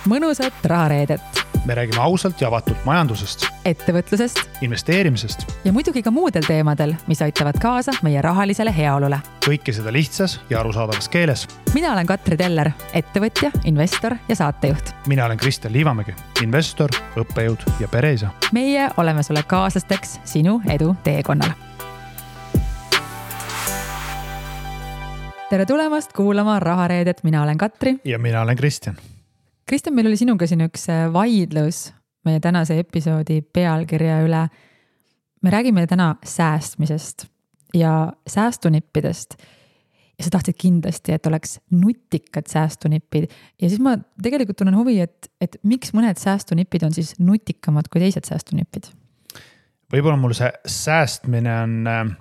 mõnusat rahareedet. Me räägime ausalt ja avatult majandusest, ettevõtlusest investeerimisest ja muidugi ka muudel teemadel, mis aitavad kaasa meie rahalisele heaolule. Kõike seda lihtsas ja arusaadavas keeles. Mina olen Katri Teller, ettevõtja, investor ja saatejuht. Mina olen Kristjan Liivamägi, investor, õppejõud ja pereisa. Meie oleme sulle kaaslasteks sinu edu teekonnal. Tere tulemast kuulama rahareedet. Mina olen Katri. Ja mina olen Kristjan. Kristjan, meil oli sinuga siin üks vaidlus meie tänase episoodi pealkirja üle. Me räägime täna säästmisest ja säästunippidest. Ja sa tahtsid kindlasti, et oleks nutikad säästunippid. Ja siis ma tegelikult tunnen huvi, et miks mõned säästunippid on siis nutikamad kui teised säästunippid? Võib-olla mul see säästmine on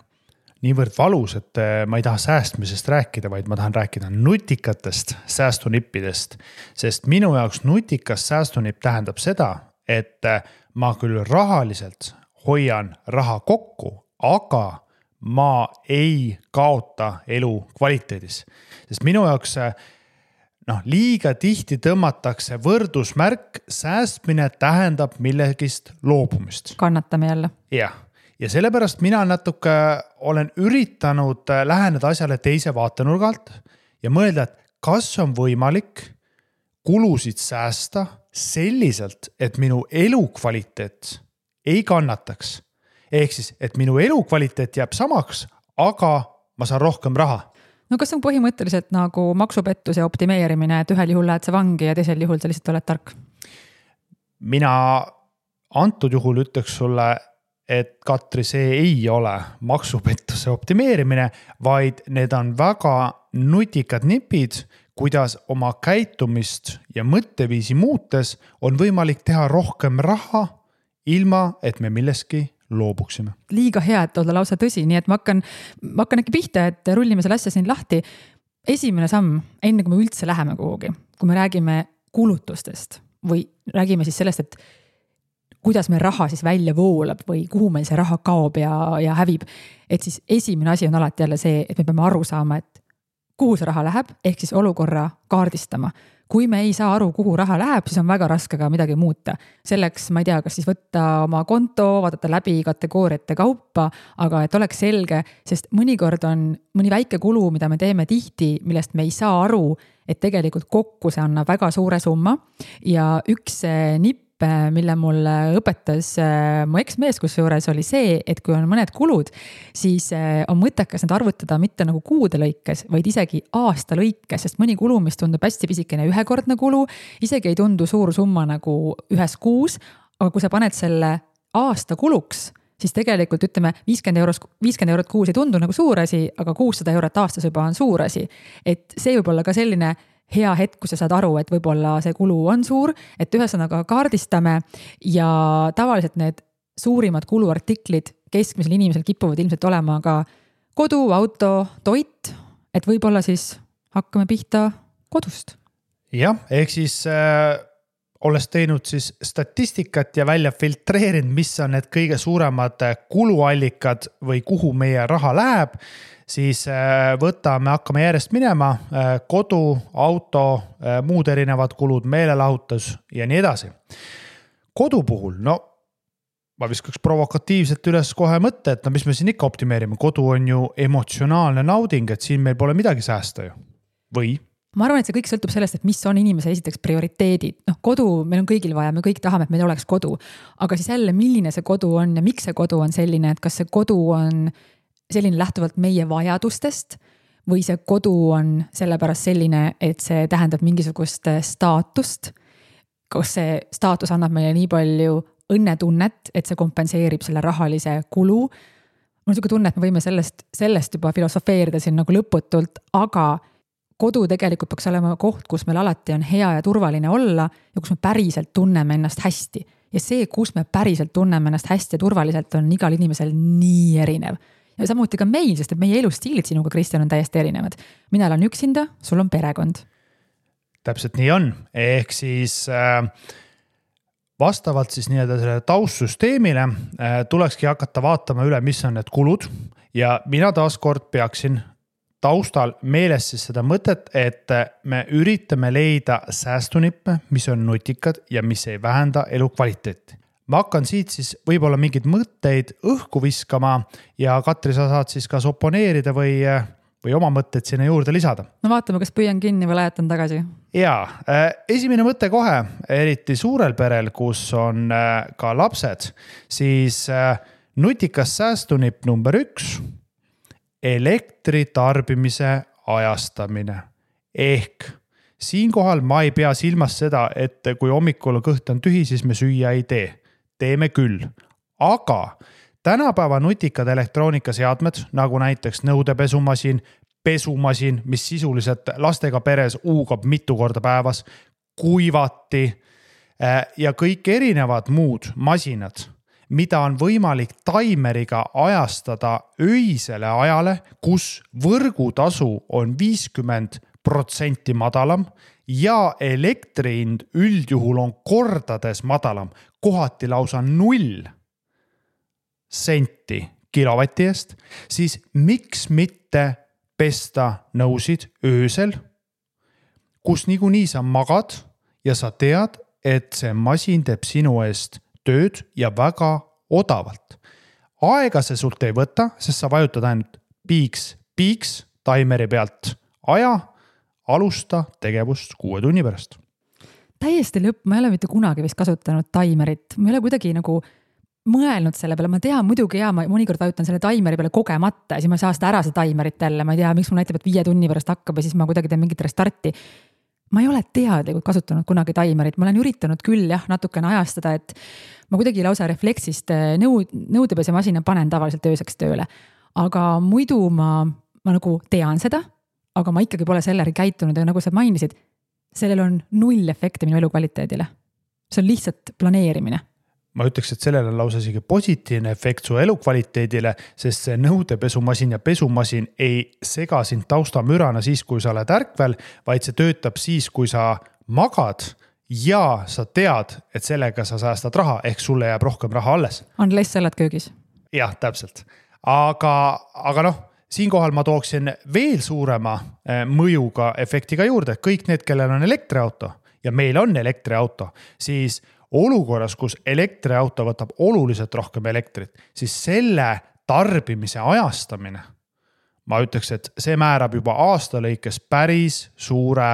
niivõrd valus, et ma ei taha säästmisest rääkida, vaid ma tahan rääkida nutikatest säästunippidest. Sest minu jaoks nutikas säästunipp tähendab seda, et ma küll rahaliselt hoian raha kokku, aga ma ei kaota elu kvaliteedis. Sest minu jaoks liiga tihti tõmmatakse võrdusmärk, säästmine tähendab millegist loobumist. Kannatame jälle. Jah. Ja sellepärast mina natuke olen üritanud läheneda asjale teise vaatenurgalt ja mõelda, et kas on võimalik kulusid säästa selliselt, et minu elukvaliteet ei kannataks. Ehk siis, et minu elukvaliteet jääb samaks, aga ma saan rohkem raha. No kas on põhimõtteliselt nagu maksupettuse optimeerimine, et ühel juhul lähed sa vangi ja teisel juhul sa lihtsalt oled tark? Mina antud juhul ütleks sulle, et Katri, see ei ole maksupettuse optimeerimine, vaid need on väga nutikad nipid, kuidas oma käitumist ja mõtteviisi muutes on võimalik teha rohkem raha, ilma et me milleski loobuksime. Liiga hea, et olla lausa tõsi, nii et ma hakkan äkki pihta, et rullime selle asja siin lahti. Esimene samm, enne kui me üldse läheme kuhugi, kui me räägime kulutustest või räägime siis sellest, et kuidas meil raha siis välja voolab või kuhu meil see raha kaob ja hävib. Et siis esimene asi on alati jälle see, et me peame aru saama, et kuhu see raha läheb, ehk siis olukorra kaardistama. Kui me ei saa aru, kuhu raha läheb, siis on väga raske ka midagi muuta. Selleks, ma ei tea, kas siis võtta oma konto, vaadata läbi kategooriate kaupa, aga et oleks selge, sest mõnikord on mõni väike kulu, mida me teeme tihti, millest me ei saa aru, et tegelikult kokku see annab väga suure summa. Ja üks nipp, mille mulle õpetas mu eksmees kusjuures oli see, et kui on mõned kulud, siis on mõttekas need arvutada mitte nagu kuude lõikes, vaid isegi aasta lõikes, sest mõni kulu, mis tundub hästi pisikene ühekordne kulu, isegi ei tundu suur summa nagu ühes kuus, aga kui sa paned selle aasta kuluks, siis tegelikult ütleme 50 eurot kuus ei tundu nagu suur asi, aga 600 eurot aastas juba on suur asi. Et see võib olla ka selline hea hetk, kui sa saad aru, et võib-olla see kulu on suur, et ühesõnaga kaardistame ja tavaliselt need suurimad kuluartiklid keskmisel inimesel kipuvad ilmselt olema ka kodu, auto, toit, et võib-olla siis hakkame pihta kodust. Jah, ehk siis olles teinud siis statistikat ja välja filtreerinud, mis on need kõige suuremad kuluallikad või kuhu meie raha läheb, siis hakkame järjest minema, kodu, auto, muud erinevad kulud, meelelahutus ja nii edasi. Kodu puhul, ma viskaks provokatiivselt üles kohe mõtte, et mis me siin ikka optimeerime. Kodu on ju emotsionaalne nauding, et siin meil pole midagi säästa ju. Või? Ma arvan, et see kõik sõltub sellest, et mis on inimese esiteks prioriteedid. Kodu meil on kõigil vaja, me kõik tahame, et meil oleks kodu. Aga siis jälle, milline see kodu on ja miks see kodu on selline, et kas see kodu on selline lähtuvalt meie vajadustest või see kodu on sellepärast selline, et see tähendab mingisugust staatust. Kas see staatus annab meile nii palju õnnetunnet, et see kompenseerib selle rahalise kulu. Mul on selline tunne, et me võime sellest juba filosofeerida siin nagu lõputult, aga kodu tegelikult peaks olema koht, kus meil alati on hea ja turvaline olla ja kus me päriselt tunneme ennast hästi. Ja see, kus me päriselt tunneme ennast hästi ja turvaliselt, on igal inimesel nii erinev. Ja samuti ka meil, sest et meie elustiilid sinuga, Kristjan, on täiesti erinevad. Mina olen üksinda, sul on perekond. Täpselt nii on. Ehk siis vastavalt siis selle taustsüsteemile tulekski hakata vaatama üle, mis on need kulud ja mina taaskord peaksin taustal meeles siis seda mõtet, et me üritame leida säästunippe, mis on nutikad ja mis ei vähenda elukvaliteeti. Ma hakkan siit siis võib-olla mingeid mõtteid õhku viskama ja Katri, sa saad siis kas oponeerida või oma mõtteid sinna juurde lisada. No vaatame, kas püüan kinni või lajatan tagasi. Jaa, esimene mõte kohe, eriti suurel perel, kus on ka lapsed, siis nutikas säästunipp number 1, elektri tarbimise ajastamine. Ehk siinkohal ma ei pea silmas seda, et kui hommikul kõht on tühi, siis me süüa ei tee. Teeme küll. Aga tänapäeva nutikad elektroonikaseadmed, nagu näiteks nõudepesumasin, pesumasin, mis sisuliselt lastega peres uugab mitu korda päevas, kuivati ja kõik erinevad muud masinad, mida on võimalik taimeriga ajastada öisele ajale, kus võrgutasu on 50% madalam ja elektrihind üldjuhul on kordades madalam, kohati lausa 0 senti kilovati eest, siis miks mitte pesta nõusid öösel, kus niikuinii sa magad ja sa tead, et see masin teeb sinu eest tööd ja väga odavalt. Aega see sult ei võta, sest sa vajutad ainult piiks taimeri pealt aja, alusta tegevust 6 tunni pärast. Täiesti lõpp, ma ei ole mitte kunagi vist kasutanud taimerit. Ma ei ole kuidagi nagu mõelnud selle peale. Ma tean muidugi ma mõnikord vajutan selle taimeri peale kogemata ja siis ma ei saa seda ära see taimerit jälle. Ma ei tea, miks mul näitab, et 5 tunni pärast hakkab ja siis ma kuidagi teen mingit restarti. Ma ei ole teadlikult kasutanud kunagi taimerit. Ma olen üritanud küll natukene ajastada, et ma kuidagi lausa refleksist nõudepesemasina panen tavaliselt ööseks tööle. Aga muidu ma nagu tean seda, aga ma ikkagi pole selleri käitunud ja nagu sa mainisid, sellel on 0 efekti minu elukvaliteedile. See on lihtsalt planeerimine. Ma ütleks, et sellel on lausa isegi positiivne efekt su elukvaliteedile, sest see nõudepesumasin ja pesumasin ei sega sind taustamürana siis, kui sa oled ärkvel, vaid see töötab siis, kui sa magad ja sa tead, et sellega sa säästad raha, ehk sulle jääb rohkem raha alles. Unless sa oled köögis. Jah, täpselt. Aga noh, siinkohal ma tooksin veel suurema mõjuga efektiga juurde. Kõik need, kellel on elektriauto ja meil on elektriauto, siis olukorras, kus elektriauto võtab oluliselt rohkem elektrit, siis selle tarbimise ajastamine, ma ütleks, et see määrab juba aasta lõikes päris suure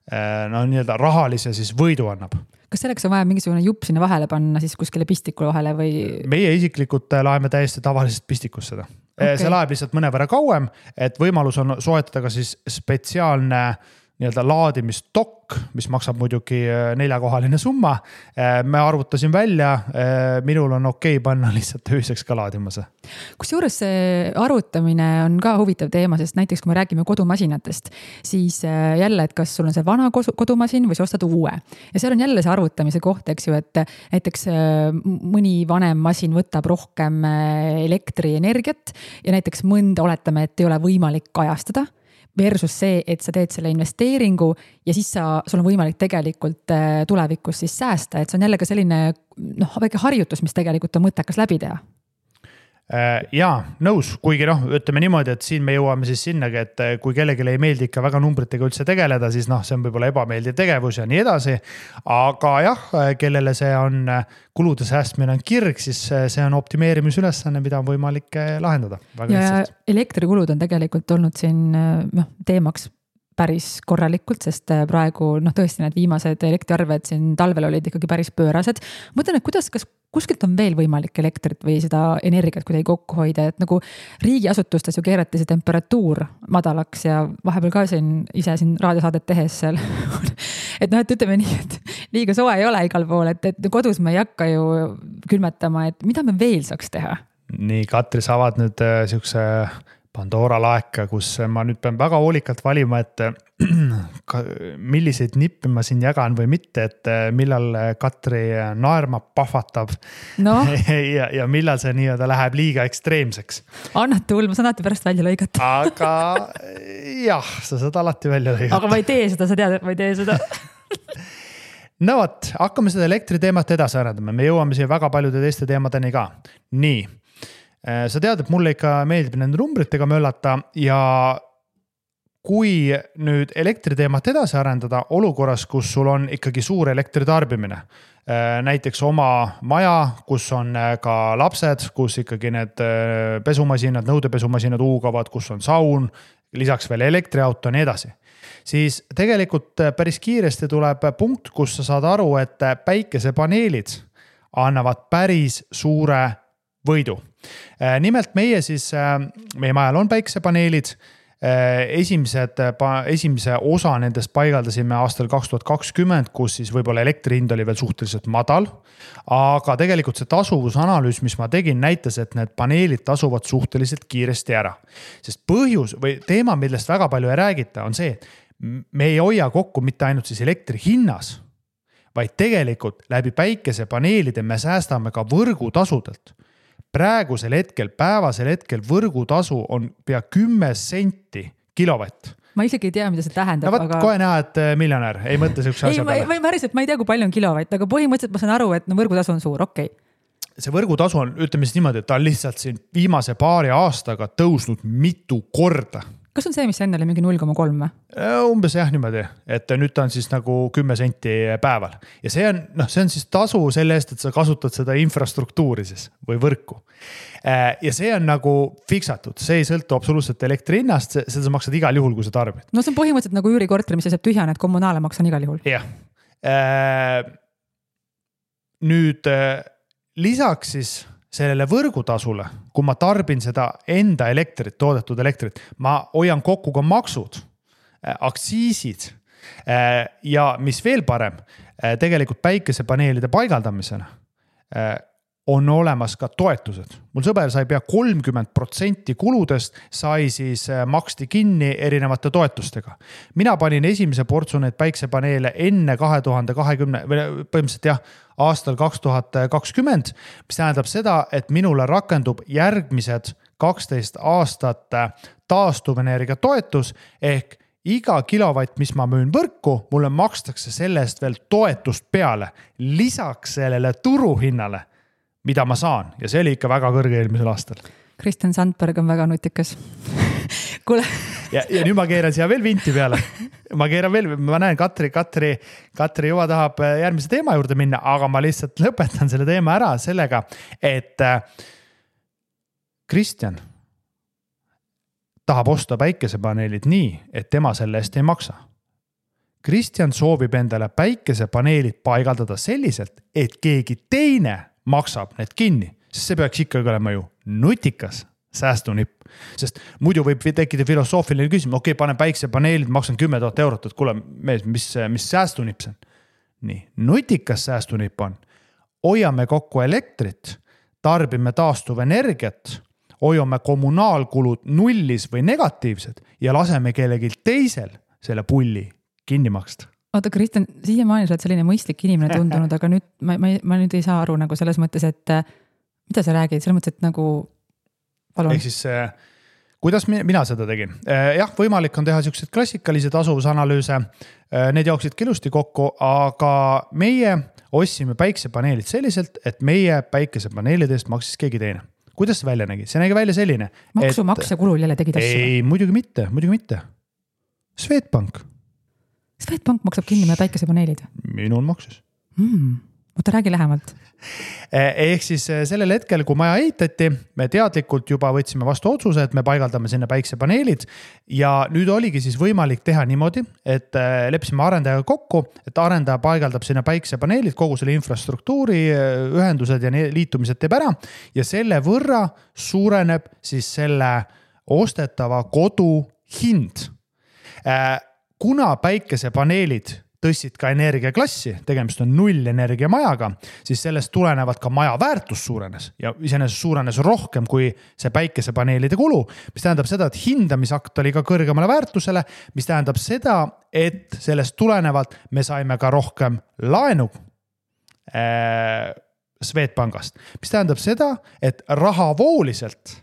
rahalise siis võidu annab. Kas selleks on vaja mingisugune jupp sinna vahele panna siis kuskile pistikule vahele või? Meie isiklikult laeme täiesti tavalisest pistikus seda. Okay. See laeb lihtsalt mõnevõrra kauem, et võimalus on soetada ka siis spetsiaalne laadimistokk, mis maksab muidugi 4-kohaline summa. Me arvutasin välja, minul on okei panna lihtsalt ööseks ka laadimase. Kusjuures see arvutamine on ka huvitav teema, sest näiteks kui me räägime kodumasinatest, siis jälle, et kas sul on see vana kodumasin või sa ostad uue. Ja seal on jälle see arvutamise koht, eks ju, et näiteks mõni vanem masin võtab rohkem elektrienergiat ja näiteks mõnda oletame, et ei ole võimalik ajastada. Versus see, et sa teed selle investeeringu ja siis sul on võimalik tegelikult tulevikus siis säästa, et see on jälle ka selline väike harjutus, mis tegelikult on mõttekas läbi teha. Jaa, nõus, kuigi ütleme niimoodi, et siin me jõuame siis sinnagi, et kui kellelegi ei meeldi ikka väga numbritega üldse tegeleda, siis see on võib-olla ebameeldiv tegevus ja nii edasi. Aga jah, kellele see on kulude säästmine on kirg, siis see on optimeerimisülesanne, mida on võimalik lahendada. Ja elektrikulud on tegelikult olnud siin teemaks päris korralikult, sest praegu tõesti need viimased elektriarved siin talvel olid ikkagi päris pöörased. Mõtlen, et kas kuskilt on veel võimalik elektrit või seda energiat kuidagi kokku hoida, et nagu riigiasutustes ju keerati see temperatuur madalaks ja vahepeal ka ise raadiosaadet tehes seal. et ütleme nii, et liiga soe ei ole igal pool, et kodus me ei hakka ju külmetama, et mida me veel saaks teha? Nii, Katri, sa avad nüüd siukse Pandora laeka, kus ma nüüd pean väga hoolikalt valima, et milliseid nippe ma siin jagan või mitte, et millal Katri naerma pahvatab ja millal see nii-öelda läheb liiga ekstreemseks. Annad tuul, ma saan alati pärast välja lõigata. Aga jah, sa saad alati välja lõigata. Aga ma ei tee seda, sa tead, et ma ei tee seda. No võt, hakkame seda elektriteemat edasi arendama. Me jõuame siia väga paljude teiste teemadeni ka. Nii. Sa tead, et mulle ikka meeldib nende numbritega möllata ja kui nüüd elektriteemat edasi arendada olukorras, kus sul on ikkagi suur elektritarbimine, näiteks oma maja, kus on ka lapsed, kus ikkagi need pesumasinad, nõudepesumasinad huugavad, kus on saun, lisaks veel elektriauto ja nii edasi, siis tegelikult päris kiiresti tuleb punkt, kus sa saad aru, et päikesepaneelid annavad päris suure võidu. Nimelt meie majal on päikesepaneelid. Esimese osa nendest paigaldasime aastal 2020, kus siis võib-olla elektri hind oli veel suhteliselt madal, aga tegelikult see tasuvusanalüüs, mis ma tegin, näitas, et need paneelid tasuvad suhteliselt kiiresti ära. Sest põhjus või teema, millest väga palju ei räägita, on see, et me ei hoia kokku mitte ainult siis elektri hinnas, vaid tegelikult läbi päikesepaneelide me säästame ka võrgutasudelt. Praegusel hetkel, päevasel hetkel võrgutasu on pea 10 senti kilovatt. Ma isegi ei tea, mida see tähendab. No võt, kohe näha, et miljonär ei mõtle sellise asja peale. Ma ei tea, kui palju on kilovatt, aga põhimõtteliselt ma saan aru, et võrgutasu on suur, okei. See võrgutasu on, ütleme siis niimoodi, et ta on lihtsalt siin viimase paari aastaga tõusnud mitu korda. Kas on see, mis enne oli mingi 0,3? Umbes jah niimoodi, et nüüd ta on siis nagu 10 senti päeval. Ja see on siis tasu selle eest, et sa kasutad seda infrastruktuuri siis või võrku. Ja see on nagu fiksatud, see ei sõltu absoluutselt elektri hinnast, seda sa maksad igal juhul, kui sa tarbid. No see on põhimõtteliselt nagu üürikorter, mis jääb tühjane, et kommunaale maksan igal juhul. Jah. Nüüd lisaks siis sellele võrgutasule, kui ma tarbin seda enda elektrit, toodetud elektrit, ma hoian kokku ka maksud, aktsiisid ja mis veel parem, tegelikult päikesepaneelide paigaldamisena on olemas ka toetused. Mul sõber sai pea 30% kuludest sai siis maksti kinni erinevate toetustega. Mina panin esimese portsu need päikesepaneele enne 2020, põhimõtteliselt jah, aastal 2020, mis tähendab seda, et minule rakendub järgmised 12 aastat taastuvenergia toetus ehk iga kilovatt, mis ma müün võrku, mulle makstakse sellest veel toetust peale, lisaks sellele turuhinnale, mida ma saan. Ja see oli ikka väga kõrge eelmisel aastal. Kristjan Sandberg on väga nutikas. Kuule. Ja nüüd ma keeran siia veel vinti peale. Ma näen Katri juba tahab järgmise teema juurde minna, aga ma lihtsalt lõpetan selle teema ära sellega, et Kristjan tahab osta päikesepaneelid nii, et tema selle eest ei maksa. Kristjan soovib endale päikesepaneelid paigaldada selliselt, et keegi teine maksab need kinni, sest see peaks ikkagi olema ju nutikas säästunipp. Sest muidu võib tekkida filosoofiline küsimus, okei, panen päikesepaneelid, maksan 10 000 eurot, et kuule, mis säästunipp see on? Nii, nutikas säästunipp on. Hoiame kokku elektrit, tarbime taastuvenergiat, hoiame kommunaalkulud nullis või negatiivsed ja laseme kellelgi teisel selle pulli kinni maksta. Oota, Kristjan, siiamaani sa oled selline mõistlik inimene tundunud, aga nüüd ma nüüd ei saa aru nagu selles mõttes, et mida sa räägid, selles mõttes, et nagu palun. Ehk siis, kuidas mina seda tegin? Jah, võimalik on teha sellised klassikalisi tasuvusanalüüse, need jooksid ilusti kokku, aga meie ostsime päikesepaneelid selliselt, et meie päikesepaneelidest maksis keegi teine. Kuidas see välja nägi? See nägi välja selline. Maksumaksja kulul jälle tegid asju? Ei, muidugi mitte. Swedbank. Swedbank maksab kinni meie päikesepaneelid? Minul maksis. Oota, räägi lähemalt. Ehk siis sellel hetkel, kui maja ehitati, me teadlikult juba võtsime vastu otsuse, et me paigaldame sinna päikesepaneelid ja nüüd oligi siis võimalik teha niimoodi, et leppisime arendajaga kokku, et arendaja paigaldab sinna päikesepaneelid, kogu selle infrastruktuuri, ühendused ja liitumised teeb ära ja selle võrra suureneb siis selle ostetava kodu hind. Kuna päikesepaneelid tõstsid ka energiaklassi, tegemist on nullenergia majaga, siis sellest tulenevad ka maja väärtus suurenes ja iseenesest suurenes rohkem kui see päikesepaneelide kulu, mis tähendab seda, et hindamisakt oli ka kõrgemale väärtusele, mis tähendab seda, et sellest tulenevalt me saime ka rohkem laenu Swedbankast, mis tähendab seda, et rahavooliselt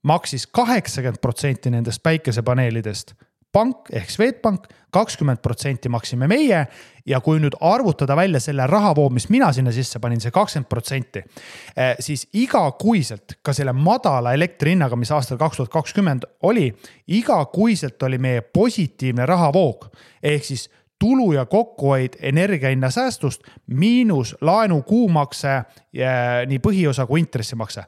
maksis 80% nendest päikesepaneelidest pank ehk Swedbank, 20% maksime meie ja kui nüüd arvutada välja selle rahavoo, mis mina sinna sisse panin, see 20%, siis igakuiselt ka selle madala elektrihinnaga, mis aastal 2020 oli, igakuiselt oli meie positiivne rahavoog ehk siis tulu ja kokkuhoid energiahinna säästust miinus laenu kuumakse nii põhiosa kui intressimakse.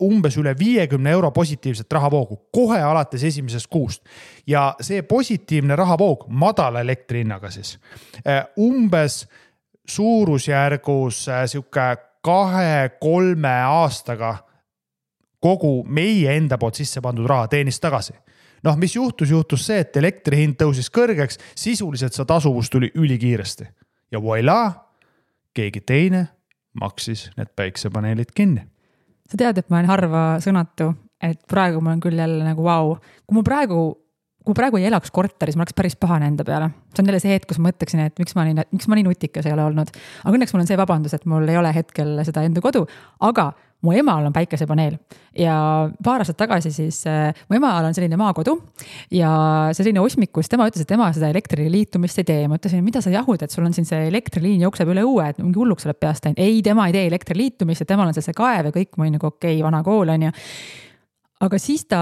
Umbes üle 50 euro positiivset rahavoogu kohe alates esimesest kuust. Ja see positiivne rahavoog madala elektrihinnaga siis umbes suurusjärgus siuke 2-3 aastaga kogu meie enda poolt sisse pandud raha teenis tagasi. Noh, mis juhtus see, et elektrihind tõusis kõrgeks, sisuliselt see tasuvus tuli ülikiiresti. Ja voilà, keegi teine maksis need päiksepaneelid kinni. Sa tead, et ma olen harva sõnatu, et praegu ma olen küll jälle nagu vau. Kui ma praegu ei elaks korteris, ma oleks päris pahane enda peale. See on jälle see hetk, kus ma mõtleksin, et miks ma nii nutikas ei ole olnud. Aga õnneks mul on see vabandus, et mul ei ole hetkel seda enda kodu, aga mu emal on päikesepaneel ja paar aastat tagasi siis mu emal on selline maakodu ja selline osmikus, tema ütles, et tema seda elektriliitumist ei tee. Ma ütlesin, mida sa jahud, et sul on siin see elektriliin jookseb üle õue, et mingi hulluks oleb peast läinud. Ei, tema ei tee elektriliitumist ja temal on see kaev ja kõik muu nagu okei, vana kool on ja. Aga siis ta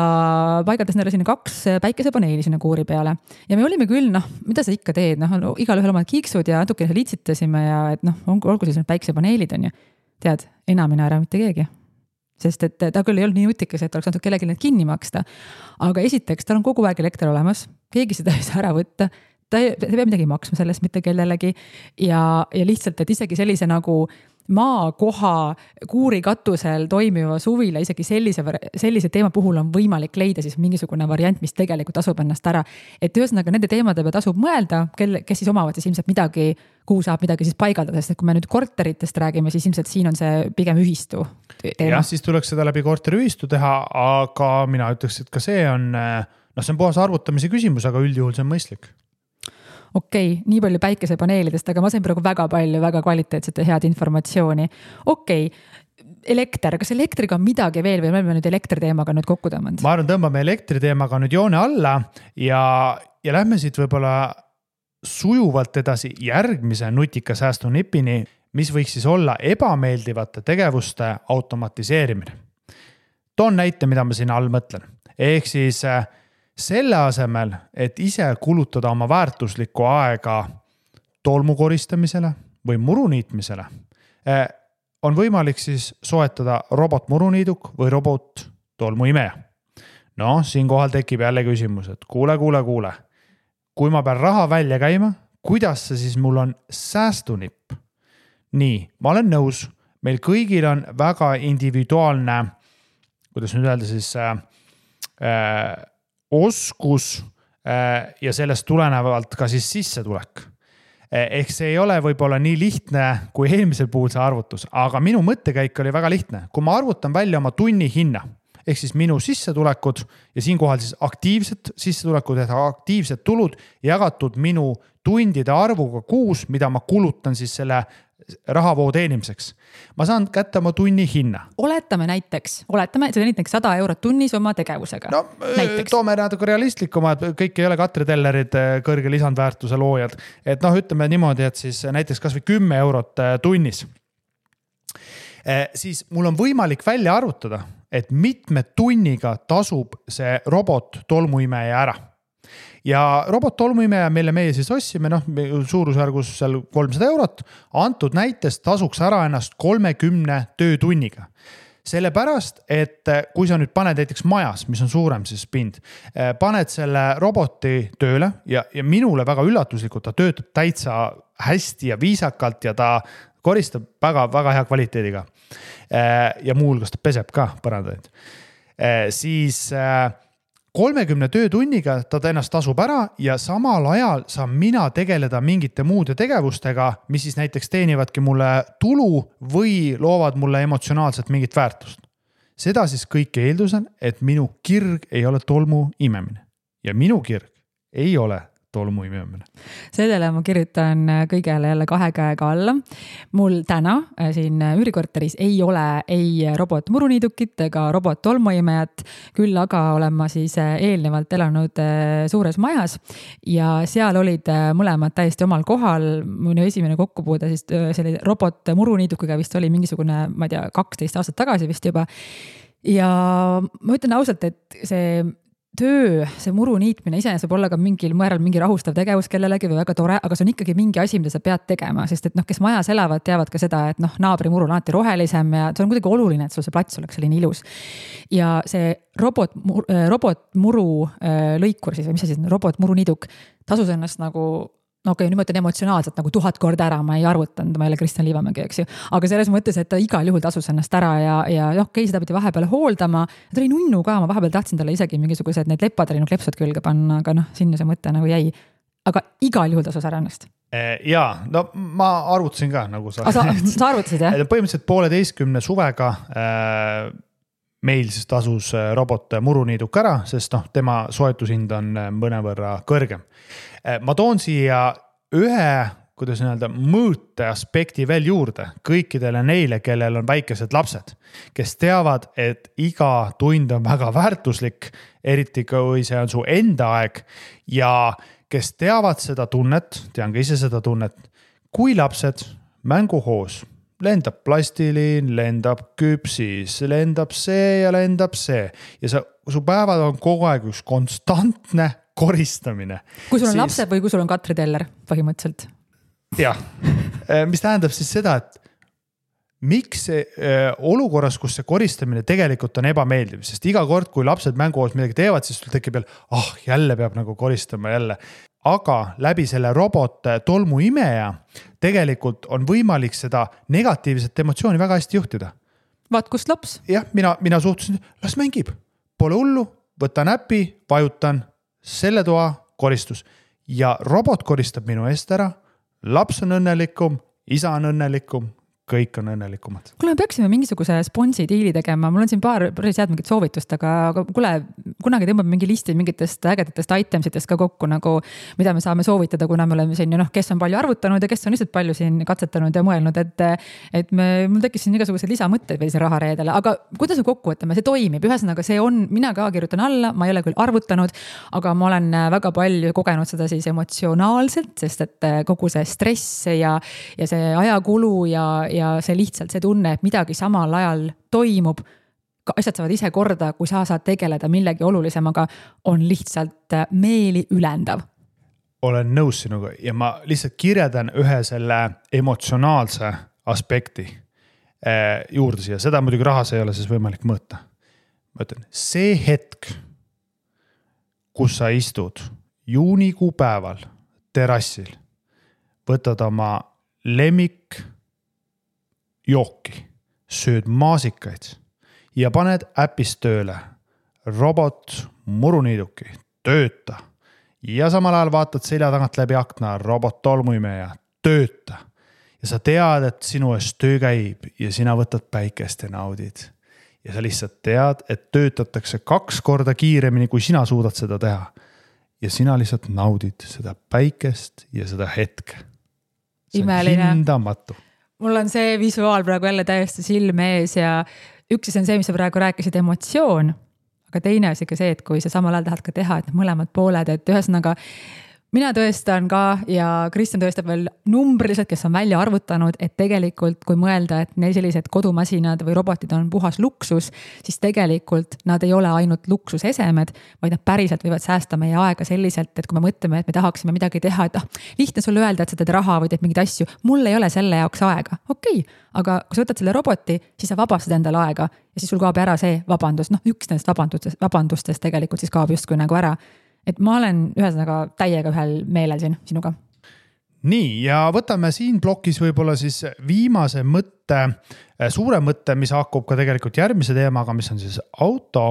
paigaldas neile sinna 2 päikesepaneeli sinna kuuri peale. Ja me olime küll, mida sa ikka teed? Igal ühel omad kiiksud ja natuke litsitasime ja et olgu siis päikesepaneelid on ju. Tead, enamine ära mitte keegi. Sest et ta küll ei olnud nii nutikas, et oleks natuke kellelgi need kinni maksta. Aga esiteks, tal on kogu aeg elekter olemas. Keegi seda ei saa ära võtta. Ta ei pea midagi maksma sellest mitte kellelegi. Ja lihtsalt, et isegi sellise nagu maakoha kuuri katusel toimiva suvila isegi sellise teema puhul on võimalik leida siis mingisugune variant, mis tegelikult tasub ennast ära. Et ühesõnaga nende teemade peal tasub mõelda, kes siis omavad siis ilmselt midagi, kuhu saab midagi siis paigaldada, sest et kui me nüüd korteritest räägime, siis ilmselt siin on see pigem ühistu teema. Jah, siis tuleks seda läbi korteriühistu teha, aga mina ütleks, et ka see on puhas arvutamise küsimus, aga üldjuhul see on mõistlik. Okei, nii palju päikesepaneelidest, aga ma sain praegu väga palju, väga kvaliteetset ja head informatsiooni. Okei, elekter, kas elektriga on midagi veel või me oleme nüüd elektriteemaga nüüd kokku tõmmanud? Ma arvan, tõmbame elektriteemaga nüüd joone alla ja lähme siit võib-olla sujuvalt edasi järgmise nutika säästunipini, mis võiks siis olla ebameeldivate tegevuste automatiseerimine. Toon näite, mida ma siin all mõtlen. Ehk siis selle asemel, et ise kulutada oma väärtuslikku aega tolmu koristamisele või muruniitmisele, on võimalik siis soetada robotmuruniiduk või robot tolmuimeja. Siinkohal tekib jälle küsimus, et kuule. Kui ma pean raha välja käima, kuidas see siis mul on säästunipp? Nii, ma olen nõus, meil kõigil on väga individuaalne, kuidas nüüd öelda siis oskus ja sellest tulenevalt ka siis sissetulek. Ehk see ei ole võib-olla nii lihtne kui eelmisel puhul see arvutus, aga minu mõttekäik oli väga lihtne. Kui ma arvutan välja oma tunni hinna, ehk siis minu sissetulekud ja siinkohal siis aktiivsed sissetulekud ja aktiivsed tulud jagatud minu tundide arvuga kuus, mida ma kulutan siis selle rahavoo teenimiseks. Ma saan kätte oma tunni hinna. Oletame, see on näiteks 100 eurot tunnis oma tegevusega. Toome natuke realistlikuma, et kõik ei ole Katri Tellerid kõrge lisandväärtuse loojad. Et ütleme niimoodi, et siis näiteks kas või 10 eurot tunnis. Siis mul on võimalik välja arvutada, et mitme tunniga tasub see robot tolmuimeja ära. Ja robot tolmuimeja, mille meie siis ossime, suurusjärgus seal 300 eurot, antud näitest tasuks ära ennast 30 töötunniga. Sellepärast, et kui sa nüüd paned näiteks majas, mis on suurem siis pind, paned selle roboti tööle ja minule väga üllatuslikult ta töötab täitsa hästi ja viisakalt ja ta koristab väga, väga hea kvaliteediga. Ja muu hulgas ta peseb ka põrandaid. Siis 30 töötunniga ta ennast tasub ära ja samal ajal saan mina tegeleda mingite muude tegevustega, mis siis näiteks teenivadki mulle tulu või loovad mulle emotsionaalselt mingit väärtust. Seda siis kõik eeldusen, et minu kirg ei ole tolmu imemine. Ja minu kirg ei ole tolmuimemine. Sellele ma kirjutan kõigele jälle 2 käega alla. Mul täna siin üürikorteris ei ole ei robotmuruniidukit ega robot-tolmuimejat, küll aga olen ma siis eelnevalt elanud suures majas ja seal olid mõlemad täiesti omal kohal. Minu esimene kokkupuude siis selle robot-muruniidukiga vist oli mingisugune, ma ei tea, 12 aastat tagasi vist juba. Ja ma ütlen ausalt, et see töö, see muru niitmine iseenesest võib olla ka mingil määral mingi rahustav tegevus kellelegi või väga tore, aga see on ikkagi mingi asi, mida sa pead tegema, sest et kes majas elavad, teavad ka seda, et naabri muru on alati rohelisem ja see on kuidagi oluline, et sul see plats oleks selline ilus. Ja see robotmuru lõikur siis, või mis see siis on, robotmuru niiduk tasus ennast nagu nüüd ma ütlen emotsionaalselt nagu 1000 korda ära, ma ei arvutanud, ma ei ole Kristjan Liivamägi, eks ju. Aga selles mõttes, et ta igal juhul tasus ennast ära ja seda pidi vahepeal hooldama. Ta oli nunnu ka, ma vahepeal tahtsin talle isegi mingisugused need leppadele klepsud külge panna, aga sinna see mõte nagu jäi. Aga igal juhul tasus ära ennast. Jaa, no ma arvutasin ka nagu sa. Sa arvutasid, jah? Põhimõtteliselt 1,5 suvega meil siis tasus robot muruniiduk ära, sest tema soetushind on mõnevõrra kõrgem. Ma toon siia ühe, kuidas öelda, mõõte aspekti veel juurde kõikidele neile, kellel on väikesed lapsed, kes teavad, et iga tund on väga väärtuslik, eriti kui see on su enda aeg ja kes teavad seda tunnet, tean ka ise seda tunnet, kui lapsed mänguhoos lendab plastilin, lendab küpsis, lendab see ja lendab see ja su päevad on kogu aeg üks konstantne koristamine. Kui sul on lapsed või kui sul on Katri Teller põhimõtteliselt? Jah, mis tähendab siis seda, et miks olukorras, kus see koristamine tegelikult on ebameeldiv, sest iga kord, kui lapsed mänguhoos midagi teevad, siis sul tekib jälle peab nagu koristama jälle. Aga läbi selle robot tolmuimeja tegelikult on võimalik seda negatiivset emotsiooni väga hästi juhtida. Vaat kust laps? Jah, mina suhtusin, las mängib. Pole hullu, võtan äpi, vajutan selle toa koristus ja robot koristab minu eest ära, laps on õnnelikum, isa on õnnelikum, kõik on õnnelikumad. Kuule, me peaksime mingisuguse sponsi diili tegema, mul on siin päris head mingit soovitust, aga kuule, kunagi tõmbab mingi listi mingitest ägedatest itemsitest ka kokku, nagu, mida me saame soovitada, kuna me oleme siin, kes on palju arvutanud ja kes on lihtsalt palju siin katsetanud ja mõelnud, et mul tekkis siin igasugused lisamõtted veel siin rahareedele, aga kuidas me kokku võtame, see toimib, ühesõnaga see on, mina ka kirjutan alla, ma ei ole küll arvutanud, aga ma olen väga palju kogenud seda siis emotsionaalselt, sest et kogu see stress ja see ajakulu ja see lihtsalt see tunne, et midagi samal ajal toimub, asjad saavad ise korda, kui sa saad tegeleda millegi olulisemaga, on lihtsalt meeli ülendav. Olen nõus sinuga ja ma lihtsalt kirjeldan ühe selle emotsionaalse aspekti juurde siia. Seda muidugi rahas ei ole siis võimalik mõõta. Ma ütlen, see hetk, kus sa istud juunikuu päeval terassil, võtad oma lemmik jooki, sööd maasikaid ja paned äpist tööle robot muruniiduki, tööta ja samal ajal vaatad selja tagant läbi akna robot tolmuimeja, tööta ja sa tead, et sinu eest töö käib ja sina võtad päikest ja naudid ja sa lihtsalt tead, et töötatakse 2 korda kiiremini, kui sina suudad seda teha ja sina lihtsalt naudid seda päikest ja seda hetke. See on hindamatu. Mul on see visuaal praegu jälle täiesti silme ees ja üks on see, mis sa praegu rääkisid, emotsioon, aga teine on ikka see, et kui sa samal ajal tahad ka teha, et mõlemad pooled, et ühesõnaga mina tõestan ka ja Kristjan tõestab veel numbriliselt, kes on välja arvutanud, et tegelikult kui mõelda, et neil sellised kodumasinad või robotid on puhas luksus, siis tegelikult nad ei ole ainult luksusesemed, vaid nad päriselt võivad säästa meie aega selliselt, et kui me mõtleme, et me tahaksime midagi teha, et lihtne sulle öelda, et sa teed raha või teed mingeid asju, mul ei ole selle jaoks aega. Okei, aga kui sa võtad selle roboti, siis sa vabastad endale aega ja siis sul kaob ära see vabandus, üks nendest vabandustest tegelikult siis kaob justkui nagu ära. Et ma olen ühesõnaga täiega ühel meelel siin sinuga. Nii, ja võtame siin plokis võib-olla siis viimase mõtte, suure mõtte, mis hakkub ka tegelikult järgmise teemaga, mis on siis auto.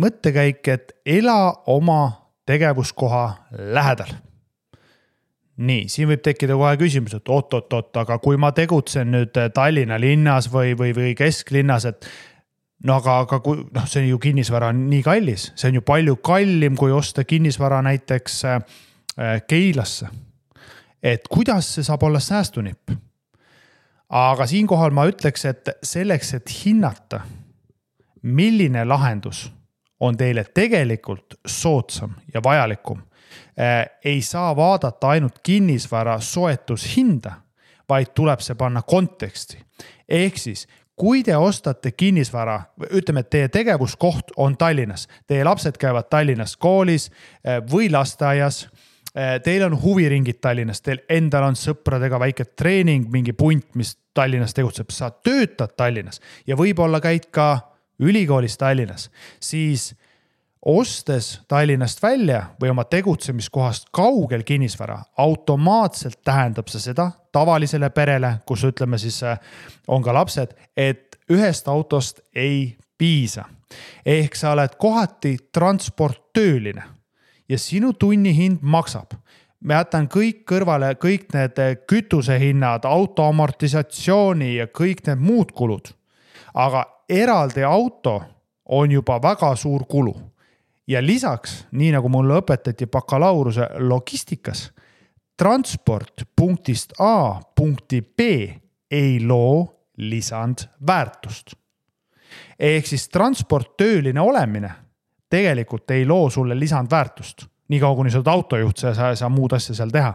Mõttekäik, et ela oma tegevuskoha lähedal. Nii, siin võib tekkida kohe küsimus, et oot, aga kui ma tegutsen nüüd Tallinna linnas või kesklinnas, et no aga see on ju kinnisvara nii kallis, see on ju palju kallim, kui osta kinnisvara näiteks Keilasse. Et kuidas see saab olla säästunipp? Aga siinkohal ma ütleks, et selleks, et hinnata, milline lahendus on teile tegelikult soodsam ja vajalikum, ei saa vaadata ainult kinnisvara soetushinda, vaid tuleb see panna konteksti. Ehk siis, kui te ostate kinnisvara, ütleme, et teie tegevuskoht on Tallinnas, teie lapsed käivad Tallinnas koolis või lasteaias, teil on huviringid Tallinnas, teil endal on sõpradega väike treening, mingi punt, mis Tallinnas tegutseb, sa töötad Tallinnas ja võib-olla käid ka ülikoolis Tallinnas, siis ostes Tallinnast välja või oma tegutsemiskohast kaugel kinnisvara, automaatselt tähendab see seda tavalisele perele, kus ütleme siis on ka lapsed, et ühest autost ei piisa. Ehk sa oled kohati transporttööline ja sinu tunnihind maksab. Me jätan kõik kõrvale, kõik need kütusehinnad, auto amortisatsiooni ja kõik need muud kulud. Aga eraldi auto on juba väga suur kulu. Ja lisaks, nii nagu mulle õpetati bakalaureuse logistikas, transport punktist A punkti B ei loo lisandväärtust. Ehk siis transporttööline olemine tegelikult ei loo sulle lisandväärtust. Nii kaua, kuni sa oled autojuht, sa ei saa muud asja seal teha.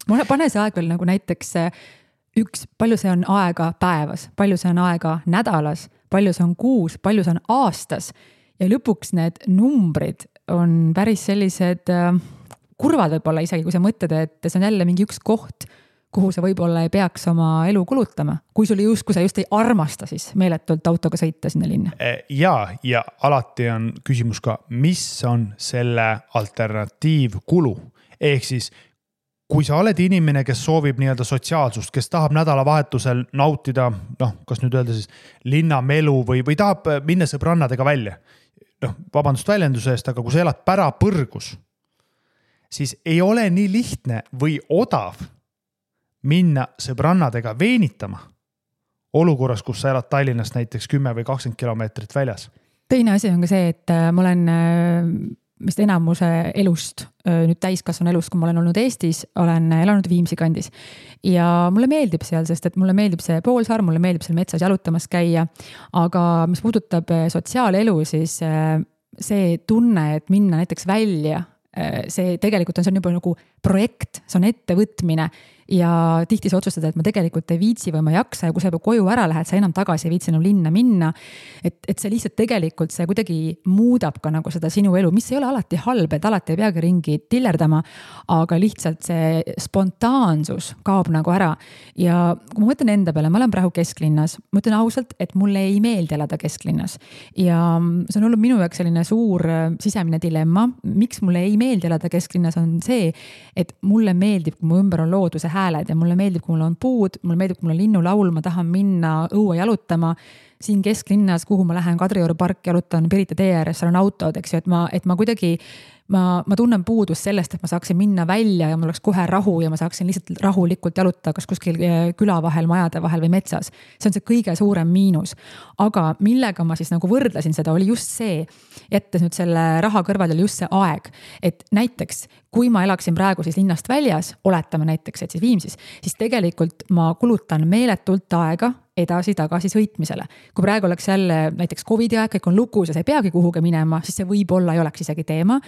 Pane see aeg veel nagu näiteks palju see on aega päevas, palju see on aega nädalas, palju see on kuus, palju see on aastas. Ja lõpuks need numbrid on päris sellised kurvad võib-olla isegi, kui sa mõtled, et see on jälle mingi üks koht, kuhu sa võib-olla ei peaks oma elu kulutama. Kui sa just ei armasta siis meeletult autoga sõita sinna linna. Ja alati on küsimus ka, mis on selle alternatiivkulu. Ehk siis, kui sa oled inimene, kes soovib nii-öelda sotsiaalsust, kes tahab nädalavahetusel nautida, kas nüüd öelda siis linnamelu või tahab minna sõbrannadega välja, vabandust väljenduse eest, aga kui sa elad pärapõrgus, siis ei ole nii lihtne või odav minna sõbrannadega veenitama olukorras, kus sa elad Tallinnast näiteks 10 või 20 kilomeetrit väljas. Teine asi on ka see, et ma olen vist enamuse elust, nüüd täiskasvanu elust, kui ma olen olnud Eestis, olen elanud Viimsi kandis. Ja mulle meeldib seal, sest et mulle meeldib see poolsaar, mulle meeldib seal metsas jalutamas käia, aga mis puudutab sotsiaalelu, siis see tunne, et minna näiteks välja, see tegelikult on juba nagu projekt, see on ettevõtmine ja tihti sa otsustad, et ma tegelikult ei viitsi või ma ei jaksa ja kui sa juba koju ära lähed, sa enam tagasi ei viitsi enam linna minna. Et see lihtsalt tegelikult see kuidagi muudab ka nagu seda sinu elu, mis ei ole alati halb, et alati ei peagi ringi tillerdama, aga lihtsalt see spontaansus kaob nagu ära. Ja kui ma mõtlen enda peale, ma olen praegu kesklinnas, ma ütlen ausalt, et mulle ei meeldi elada kesklinnas. Ja see on olnud minu jaoks selline suur sisemine dilemma, miks mulle ei meeldi elada kesklinnas on see, et mulle meeldib, kui mu ümber on looduse hääled ja mulle meeldib, kui mul on puud, mulle meeldib, kui mul on linnulaul, ma tahan minna õue jalutama. Siin kesklinnas, kuhu ma lähen Kadrioru park jalutan Pirita tee ääres, seal on autod, eks ju, et ma kuidagi, ma tunnen puudust sellest, et ma saaksin minna välja ja mul oleks kohe rahu ja ma saaksin lihtsalt rahulikult jalutada kas kuskil küla vahel, majade vahel või metsas. See on see kõige suurem miinus. Aga millega ma siis nagu võrdlesin seda, oli just see, jättes nüüd selle raha kõrval oli just see aeg, et näiteks kui ma elaksin praegu siis linnast väljas, oletame näiteks, et siis Viimsis, siis tegelikult ma kulutan meeletult aega edasi-tagasi sõitmisele. Kui praegu oleks jälle näiteks COVID-i aeg, kõik on lukus ja sa ei peagi kuhugi minema, siis see võib-olla ei oleks isegi teema.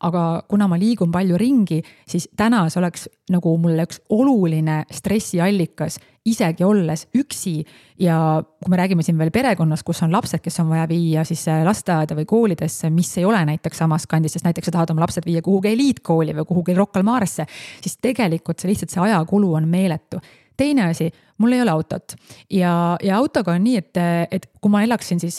Aga kuna ma liigun palju ringi, siis täna see oleks nagu mulle üks oluline stressiallikas, isegi olles üksi. Ja kui me räägime siin veel perekonnas, kus on lapsed, kes on vaja viia siis lasteaeda või koolidesse, mis ei ole näiteks samas kandis, sest näiteks sa tahad oma lapsed viia kuhugi eliitkooli või kuhugi Rocca al Maresse, siis tegelikult see lihtsalt see ajakulu on meeletu. Teine asi, mul ei ole autot ja autoga on nii, et kui ma elaksin siis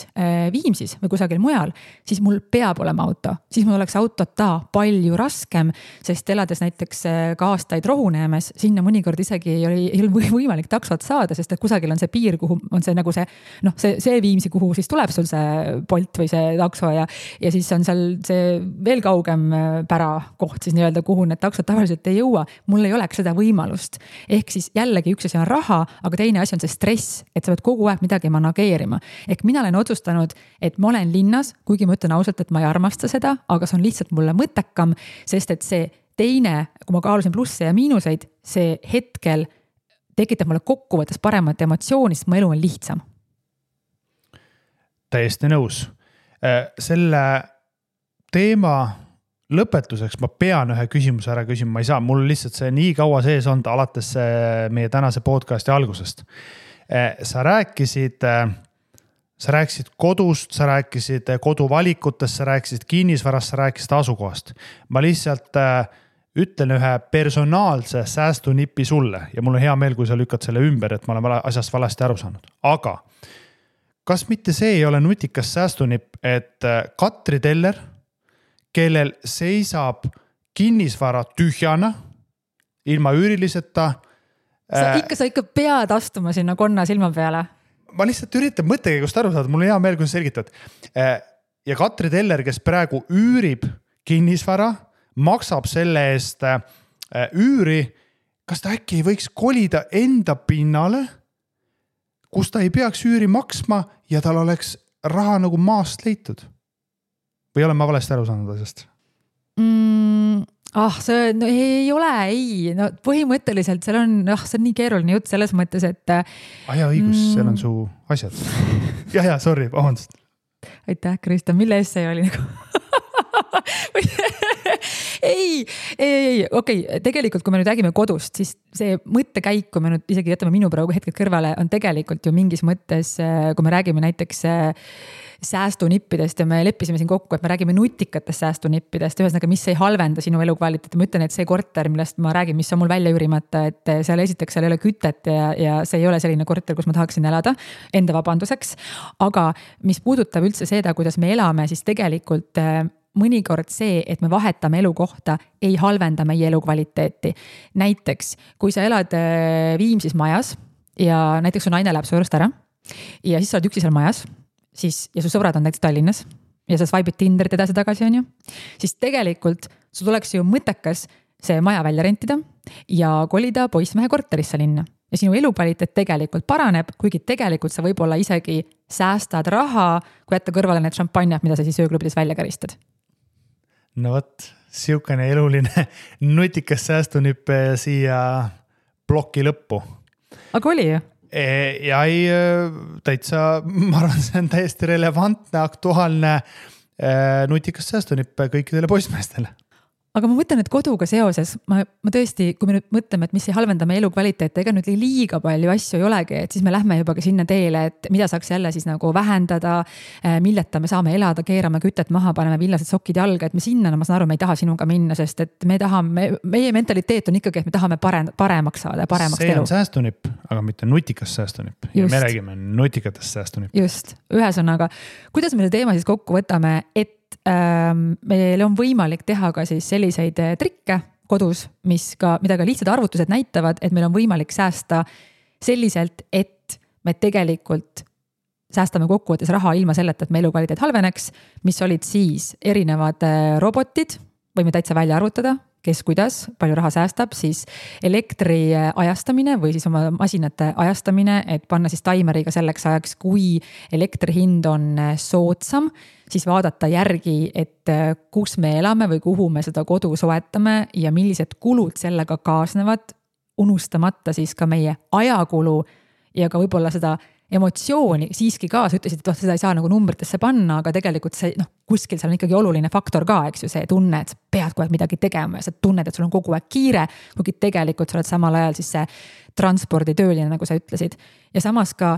Viimsis või kusagil mujal, siis mul peab olema auto. Siis mul oleks autota palju raskem, sest elades näiteks ka aastaid Rohuneemes, sinna mõnikord isegi ei ole võimalik taksot saada, sest et kusagil on see piir, kuhu on see nagu see Viimsi, kuhu siis tuleb sul see Bolt või see takso ja siis on seal see veel kaugem pärakoht siis nii-öelda, kuhu need taksod tavaliselt ei jõua. Mul ei oleks seda võimalust. Ehk siis jällegi üks asi on raha, aga teine asi on see stress, et sa pead kogu aeg midagi manageerima. Ehk mina olen otsustanud, et ma olen linnas, kuigi ma ütlen ausalt, et ma ei armasta seda, aga see on lihtsalt mulle mõttekam, sest et see teine, kui ma kaalusin plusse ja miinuseid, see hetkel tekitab mulle kokkuvõttes paremat emotsiooni, sest mu elu on lihtsam. Täiesti nõus. Selle teema lõpetuseks ma pean ühe küsimuse ära küsima, ma ei saa, mul lihtsalt see nii kaua sees on alates meie tänase podcasti algusest. Sa rääkisid kodust, sa rääkisid koduvalikutest, sa rääkisid kinnisvarast, sa rääkisid asukohast. Ma lihtsalt ütlen ühe personaalse säästunipi sulle ja mul on hea meel, kui sa lükkad selle ümber, et ma olen asjast valesti aru saanud. Aga kas mitte see ei ole nutikas säästunipp, et Katri Teller, kellel seisab kinnisvara tühjana, ilma üüriliseta. Sa ikka pead astuma sinna konna silma peale. Ma lihtsalt üritan mõttekäigust aru saada, mul on hea meel, kui sa selgitad. Ja Katri Teller, kes praegu üürib kinnisvara, maksab selle eest üüri, kas ta äkki ei võiks kolida enda pinnale, kus ta ei peaks üüri maksma ja tal oleks raha nagu maast leitud? Või olen ma valesti aru saanud asjast? See no, ei ole, no põhimõtteliselt see on nii keeruline jutt selles mõttes, et õigus, seal on su asjad. ja, sorry, vabandust. Aitäh, Krista, mille eest see oli nagu? Okei, tegelikult kui me nüüd räägime kodust, siis see mõttekäik, kui me nüüd isegi jätame minu praegu hetked kõrvale, on tegelikult ju mingis mõttes, kui me räägime näiteks säästunippidest ja me leppisime siin kokku, et me räägime nutikatest säästunippidest, ühesõnaga, mis ei halvenda sinu elukvaliteeti. Ma ütlen, et see korter, millest ma räägin, mis on mul välja üürimata, et seal esiteks seal ei ole kütet ja see ei ole selline korter, kus ma tahaksin elada enda vabanduseks. Aga mis puudutab üldse seda, kuidas me elame, siis tegelikult mõnikord see, et me vahetame elukohta, ei halvenda meie elukvaliteeti. Näiteks, kui sa elad Viimsis majas ja näiteks su naine läheb su juurest ära ja siis sa oled üksi seal majas, siis, ja su sõbrad on näiteks Tallinnas ja sa swipe'id Tinderit edasi tagasi, on ju, siis tegelikult sul tuleks ju mõttekas see maja välja rentida ja kolida poissmehe korterisse linna. Ja sinu elukvaliteet tegelikult paraneb, kuigi tegelikult sa võib-olla isegi säästad raha, kui jätta kõrvale need šampanjad, mida sa siis ööklubides välja käristad. No võt, siukene eluline nutikas säästunipp siia ploki lõppu. Aga oli ju? Ja täitsa, ma arvan, see on täiesti relevantne, aktuaalne nutikas säästunipp kõikidele poissmeestele. Aga ma mõtlen, et koduga seoses, ma tõesti, kui me nüüd mõtleme, et mis ei halvenda meie elukvaliteet, ega nüüd liiga palju asju ei olegi, et siis me lähme juba ka sinna teele, et mida saaks jälle siis nagu vähendada, milleta me saame elada, keerame kütet maha, paneme villased sokid jalga, et me sinna, ma saan aru, me ei taha sinuga minna, sest et meie mentaliteet on ikkagi, et me tahame paremaks saada, paremaks see elu. See on säästunipp, aga mitte nutikas säästunipp. Ja me räägime nutikatest säästunipp. Just, ühesõnaga, kuidas me see teema siis kokku võtame, et meil on võimalik teha ka siis selliseid trikke kodus, mida ka lihtsad arvutused näitavad, et meil on võimalik säästa selliselt, et me tegelikult säästame kokkuvõttes raha ilma selleta, et me elukvaliteet halveneks, mis olid siis erinevad robotid, võime täitsa välja arvutada, kes kuidas, palju raha säästab, siis elektri ajastamine või siis oma masinate ajastamine, et panna siis taimeriga selleks ajaks, kui elektri hind on soodsam, siis vaadata järgi, et kus me elame või kuhu me seda kodu soetame ja millised kulud sellega kaasnevad, unustamata siis ka meie ajakulu ja ka võib-olla seda emotsiooni siiski ka, sa ütlesid, et seda ei saa nagu numbritesse panna, aga tegelikult see, kuskil seal on ikkagi oluline faktor ka, eks ju, see tunne, et sa pead kogu aeg midagi tegema ja sa tunned, et sul on kogu aeg kiire, kuigi tegelikult sa oled samal ajal siis see transporditööline, nagu sa ütlesid. Ja samas ka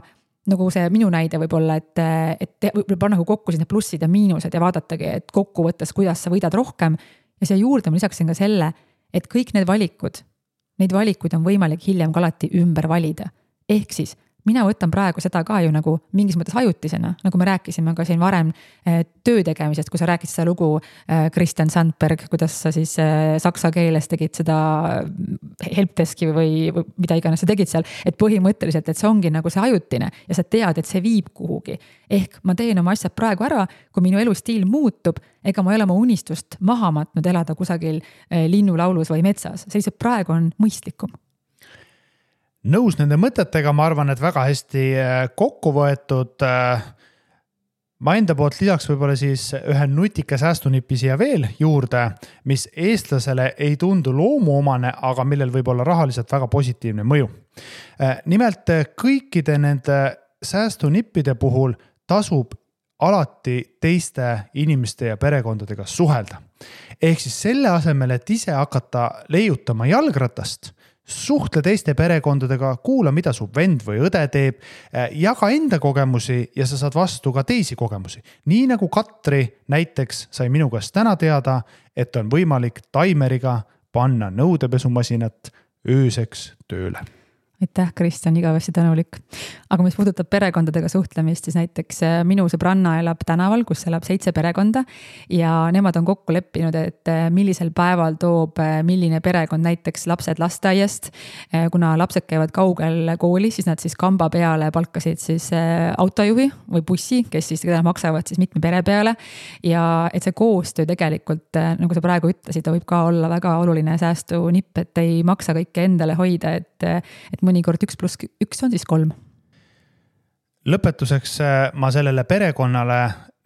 nagu see minu näide võib-olla, et võib panna kokku siis need plussid ja miinused ja vaadatagi, et kokkuvõttes, kuidas sa võidad rohkem ja siia juurde ma lisaksin ka selle, et kõik need neid valikuid on võimalik hiljem ka alati ümber valida. Ehk siis mina võtan praegu seda ka ju nagu mingis mõttes ajutisena, nagu me rääkisime ka siin varem töö tegemisest, kui sa rääkisid seda lugu Christian Sandberg, kuidas sa siis saksa keeles tegid seda helpdeski või mida iganes sa tegid seal, et põhimõtteliselt, et see ongi nagu see ajutine ja sa tead, et see viib kuhugi. Ehk ma teen oma asjad praegu ära, kui minu elustiil muutub, ega ma ei ole oma unistust maha matnud elada kusagil linnulaulus või metsas, see lihtsalt praegu on mõistlikum. nõus nende mõtetega, ma arvan, et väga hästi kokku võetud. Ma enda poolt lisaks võib-olla siis ühe nutika säästunipi siia veel juurde, mis eestlasele ei tundu loomuomane, aga millel võib olla rahaliselt väga positiivne mõju. Nimelt kõikide nende säästunippide puhul tasub alati teiste inimeste ja perekondadega suhelda. Ehk siis selle asemel, et ise hakata leiutama jalgratast, suhtle teiste perekondadega, kuula, mida su vend või õde teeb, jaga enda kogemusi ja sa saad vastu ka teisi kogemusi. Nii nagu Katri näiteks sai minu käest täna teada, et on võimalik taimeriga panna nõudepesumasinat ööseks tööle. Aitäh, Kristjan, igavesti tänulik. Aga mis puudutab perekondadega suhtlemist, siis näiteks minu sõbranna elab tänaval, kus elab 7 perekonda ja nemad on kokku leppinud, et millisel päeval toob milline perekond näiteks lapsed lasteaiast. Kuna lapsed käivad kaugel kooli, siis nad siis kamba peale palkasid siis autojuhi või bussi, kes siis maksavad siis mitme pere peale. Ja et see koostöö tegelikult, nagu sa praegu ütlesid, võib ka olla väga oluline säästunipp, et ei maksa kõike endale hoida, et mõnikord 1+1 on siis 3. Lõpetuseks ma sellele perekonnale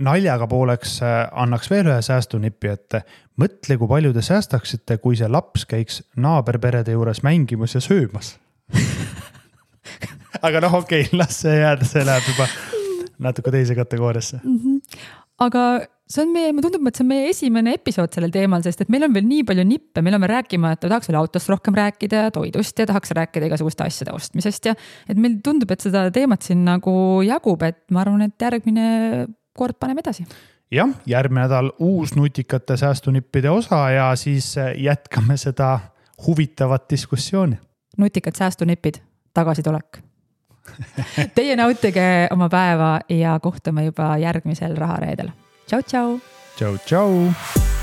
naljaga pooleks annaks veel ühe säästunipi, et mõtle, kui palju te säästaksite, kui see laps käiks naaberperede juures mängimas ja söömas. Aga noh, okei, las see jääda, see läheb juba natuke teise kategooriasse. Aga see on mulle tundub, et see on meie esimene episood sellel teemal, sest et meil on veel nii palju nippe, meil on rääkima, et tahaks veel autost rohkem rääkida ja toidust ja tahaks rääkida igasuguste asjade ostmisest ja et meil tundub, et seda teemat siin nagu jagub, et ma arvan, et järgmine kord paneme edasi. Jah, järgmine nädal uus nutikate säästunippide osa ja siis jätkame seda huvitavat diskussiooni. Nutikad säästunipid, tagasitulek. Teie nautige oma päeva ja kohtume juba järgmisel rahareedel. Tšau, tšau! Tšau, tšau!